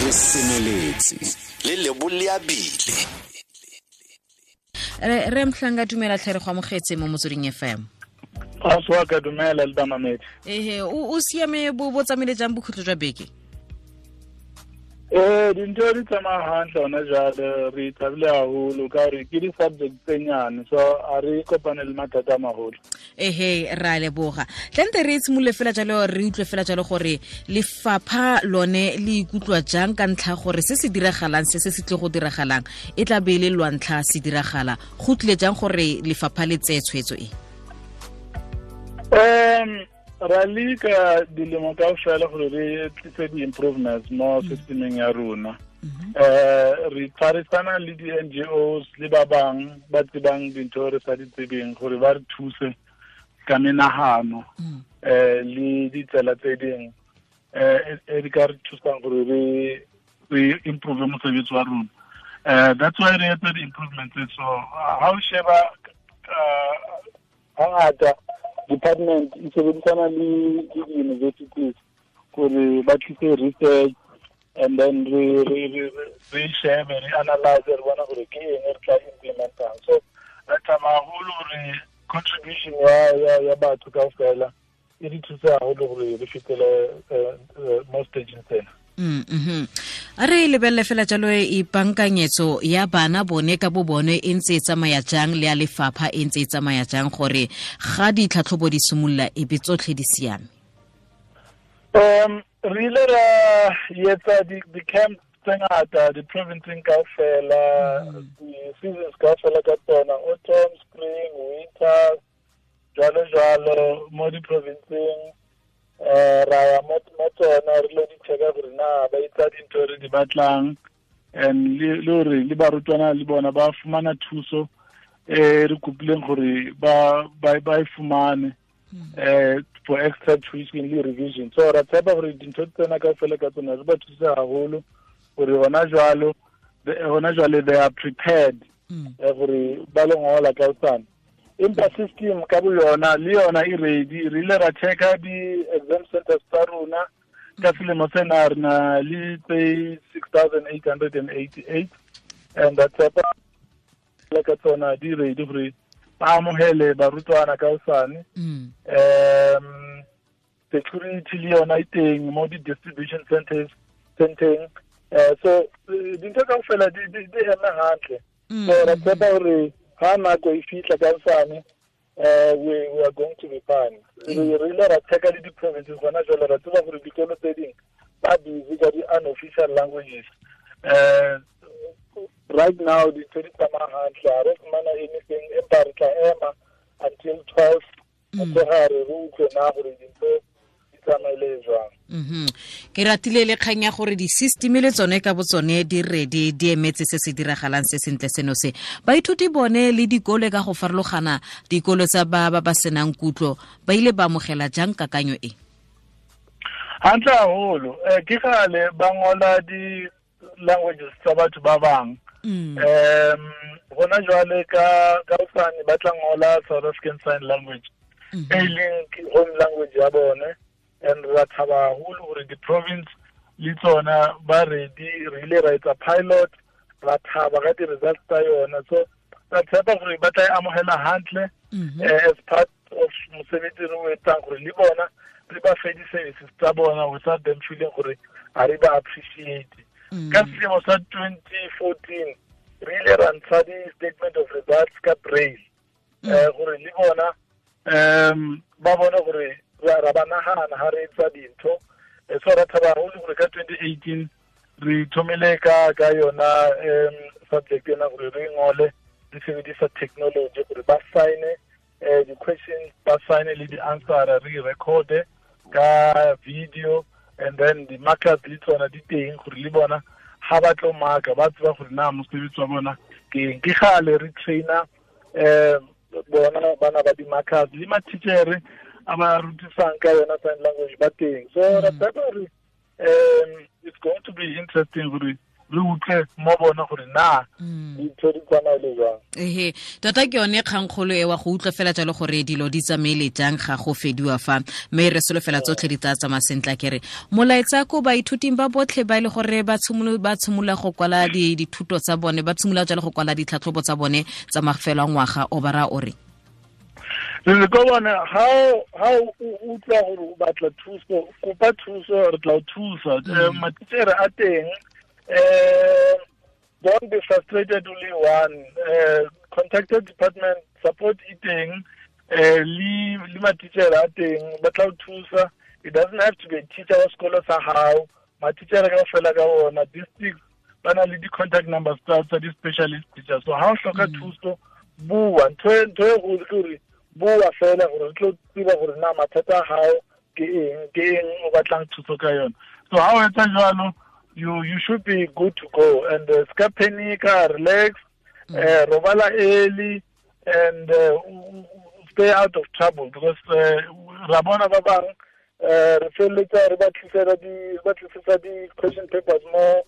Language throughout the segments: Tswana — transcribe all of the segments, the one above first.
Re semeletse le leboleabile. Re Mhlanga, dumela tlhe, re go amogetse mo Motsweding FM. A swa ka, dumela le bamamedi. Ehe, o siame? Bo tsamaile jang bokhutlo jwa beke? Ee, dintho di tsamaya hantle hona jwale. Re thabile haholo ka gore ke di-subject tse nyane, so a re kopane le mathata a maholo. Ehe, ra leboga. Tlante re tshimolole fela jalo, re utlwe fela jalo gore lefapha lone le ikutlwa jang ka ntlha gore se se diragalang, se se tle go diragalang, e tla be e le lwantlha se diragala. Go tlile jang gore lefapha le tseye tshwetso e? Ra leka dilemo kaofela gore re tlise di-improvements mo systemeng ya rona. Re tshwarisana le di-NGOs le ba bang ba tsebang dintho re sa di tsebeng gore ba re thuse ka menahano le ditsela tse ding e di ka re thusang gore re improve mosebetsi wa rona. That's why re etsa di-improvements. So ha o sheba, hangata department e sebedisana le di-universities gore ba tlise research and then re shebe, re analyze, re bona gore ke eng re tla implementang. So re tsamaya haholo gore contribution ya batho kaofela e re thuse haholo gore re fetele mo stageng tsena. A re lebelele fela jalo, ipankanyetso ya bana bone ka bo bone e ntse e tsamaya jang, le ya lefapha e ntse e tsamaya jang, gore ga ditlhatlhobo di simolola e be tsotlhe di siame? Re ile ra etsa di-camp tse ngata di-provinceng kaofela, di-seasons kaofela ka tsona, autumn, spring, winter, jwalo jwalo. Mo di-provinceng ra ya mo tsona, re lo di checka gore na ba etsa dintho re di batlang and le gore le barutwana le bona ba fumana thuso re kopileng gore ba e fumane for extra tuition le revision. So ra tshepa gore dintho tsena kaofela ka tsona re ba thuse haholo gore hona jwale they are prepared gore ba lo ngola ka hosane. Empa system ka bo yona le yona e ready. Re ile ra checka di-exam centers tsa rona. Ka selemo sena re na le tse 6888 and ra tshepa le ka tsona di ready gore ba amohele barutwana ka hosane. Security le yona e teng mo di-distribution centers centeng. So dintho kaofela di eme hantle. So ra tshepa gore ha nako e fihla ka hosane, we are going to be fine. Re ile ra checka le di-provinces gona jwale. Ra tseba gore dikolo tse ding ba busy ka di-unofficial languages. Right now dintho di tsamaya hantle, ha re fumana anything, empa re tla ema until 12 motshegare re utlwe na gore dintho di tsamaile jwang. Ke ratile le kgang ya gore di-system le tsone ka bo tsone di ready, di emetse se se diragalang se sentle seno se. Baithuti bone le dikolo ka go farologana, dikolo tsa ba senang kutlo, ba ile ba amogela jang kakanyo e? Hantle haholo. Ke kgale ba ngola di-languages tsa batho ba bang. Gona jwale ka hosane ba tla ngola South African Sign Language, e leng home language ya bone, and ra thaba haholo gore di-province le tsona ba ready. Re ile ra etsa pilot, ra thaba ka di-results tsa yona. So ra tshepa gore ba tla e amohela hantle as part of mosebetsi re o etsang gore le bona re ba fe di-services tsa bona without them feeling gore ga re ba appreciate. Ka selemo sa 2014 re ile ra ntsha di-statement of results ka braille gore le bona ba bone gore ra ba nagana ha re etsa dintho. So ra thaba haholo gore ka 2018 re thomile ka yona subject ena gore re ngole re sebedisa technology gore ba sign di-questions, ba sign le di-answer, re recorde ka video, and then di-markers le tsona di teng gore le bona ha ba tlo marka ba tseba gore na mosebetsi wa bona ke eng. Ke kgale re trainer bona bana ba di-markers, le matitjhere a ba rutisang ka yona sign language ba teng. So ra tshepa gore it's going to be interesting gore Re utlwe mo bona gore na dintho di tsamaile jang. Ehe, tota ke yone kgangkgolo e wa go utlwa fela jalo gore dilo di tsamaile jang ga go fediwa fa, mme re solofela tsotlhe di tla tsamaya sentle. Kere molaetsa ko baithuting ba botlhe ba e le gore ba tshimolola go kwala dithuto tsa bone, ba tshimolola jalo go kwala ditlhatlhobo tsa bone tsa mafelo a ngwaga, o bara o re re ko bona ha o utlwa gore o batla thuso, kopa thuso, re tla o thusa. Matitjhere a teng. Don't be frustrated, only one. Contact the department, support e teng, le matitjhere a teng ba tla o thusa. It doesn't have to be a teacher wa sekolo sa hao, matitjhere kaofela ka ona district ba na le di-contact numbers tsa di-specialist teacher. So ha o hloka thuso, bua. Ntho e kgolo ke gore bua fela, gore re tlo tseba gore na mathata a hao ke eng o batlang thuso ka yona. So ha o etsa jwalo, you should be good to go. And ska panika, relax, robala early, and stay out of trouble, because ra bona ba bang re felletsa re ba tlisetsa di question papers mo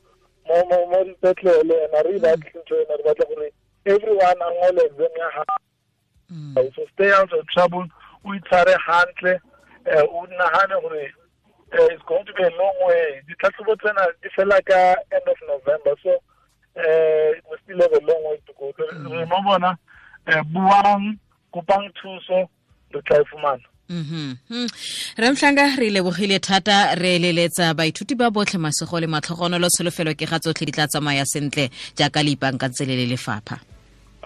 dipetlele, and a re batle ntho ena, re batla gore everyone a ngole exam ya hao. So stay out of trouble, o itshware hantle, o nahane gore it's going to be a long way. Ditlhatlhobo tsena di fela ka end of November, so we still have a long way to go. Re mo bona, buang, kopang thuso, re tla e fumana. Re Mhlanga, re lebogile thata, re eleletsa baithuti ba botlhe masego le matlhogonolo, tsholofelo ke ga tsotlhe di tla tsamaya sentle jaaka le ipaakantse le lefapha.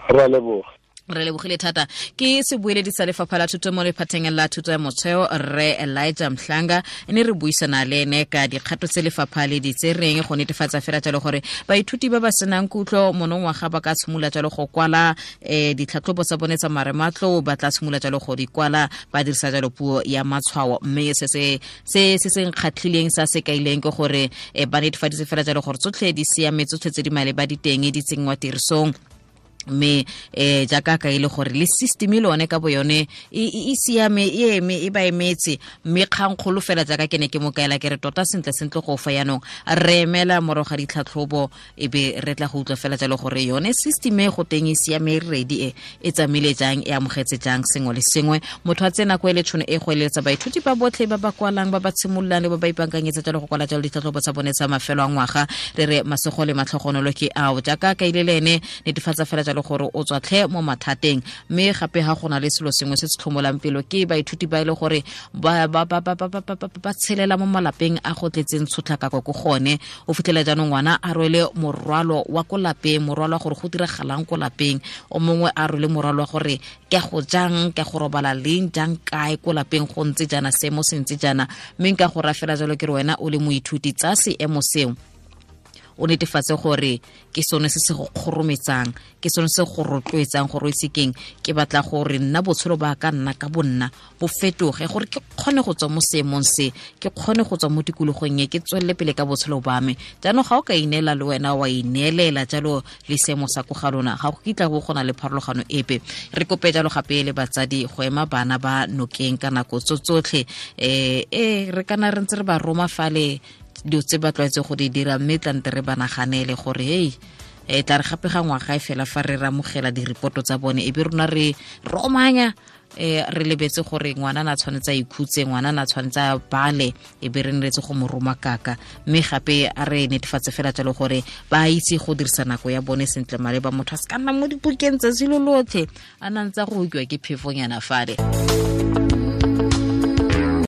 Ra leboga. Re lebogile thata. Ke sebueledi sa lefapha la thuto mo lephateng la thuto ya motheo, Rre Elijah Mhlanga, ne re buisana le ene ka dikgato tse lefapha le di tsereng go netefatsa fela jalo gore baithuti ba ba senang kutlo monongwaga ba ka tshimolola jalo go kwala ditlhatlhobo tsa bone tsa marematlou, ba tla tshimolola jalo go di kwala ba dirisa jalo puo ya matshwao. Mme se se nkgatlhileng sa se kaileng ke gore ba netefaditse fela jalo gore tsotlhe di siame, tsotlhe tse di maleba di teng di tsenngwa tirisong, mme jaaka ka ile gore le system e lone ka bo yone e siame, e eme, e ba emetse. Mme kgangkgolo fela jaaka ke ne ke mo kaela ke re tota sentle sentle go fa yanong re emela morago ga ditlhatlhobo, e be re tla go utlwa fela jalo gore yone system e go teng e siame, e ready, e tsamaile jang, e amogetse jang sengwe le sengwe. Motho a tsena ko e le tšhono e go eletsa baithuti ba botlhe ba ba kwalang, ba ba tshimololang le ba ba ipaakanyetsa jalo go kwala jalo ditlhatlhobo tsa bone tsa mafelo a ngwaga, re re masego le matlhogonolo ke ao. Jaaka ka ile le ene netefatsa fela jalo gore o tswa tlhe mo mathateng. Mme gape ha gona le selo sengwe se se tlhomolang pelo ke baithuti ba ile gore ba tshelela mo malapeng a go tletseng tshotlakako ko gone. O fitlhela jaanong ngwana a rwele morwalo wa ko lapeng, morwalo wa gore go diragalang ko lapeng, o mongwe a rwele morwalo wa gore ke go jang, ke go robala leng, jang, kae ko lapeng, go ntse jaana, seemo se ntse jaana. Mme nka go rafela jalo ke re wena o le moithuti, tsa seemo seo o netefatse gore ke sone se se go kgorometsang, ke sone se go rotloetsang gore o itse keng, ke batla gore nna botshelo ba ka nna ka bonna bo fetoge, gore ke kgone go tswa mo seemong se, ke kgone go tswa mo tikologong e, ke tswelele pele ka botshelo ba me. Jaanong ga o ka ineela le wena wa ineelela jalo le seemo sa ko ga lona, ga go kitla go gona le pharologano epe. Re kope jalo gape le batsadi go ema bana ba nokeng ka nako tso tsotlhe, re kana re ntse re ba roma fale dilo tse ba tlwaetse go di dira, mme tlante re ba naganele gore hei, tla re gape ga ngwaga e fela fa re ramogela diripoto tsa bone, e be rona re romanya, re lebetse gore ngwana na tshwanetse a ikhutse, ngwana na tshwanetse a bale, e be re nretse go mo roma kaka. Mme gape a re netefatse fela jalo gore ba itse go dirisa nako ya bone sentle maleba, motho a se ka nna mo dipukeng tsatsi lo lotlhe a na ntse a go utlwa ke phefonyana fale.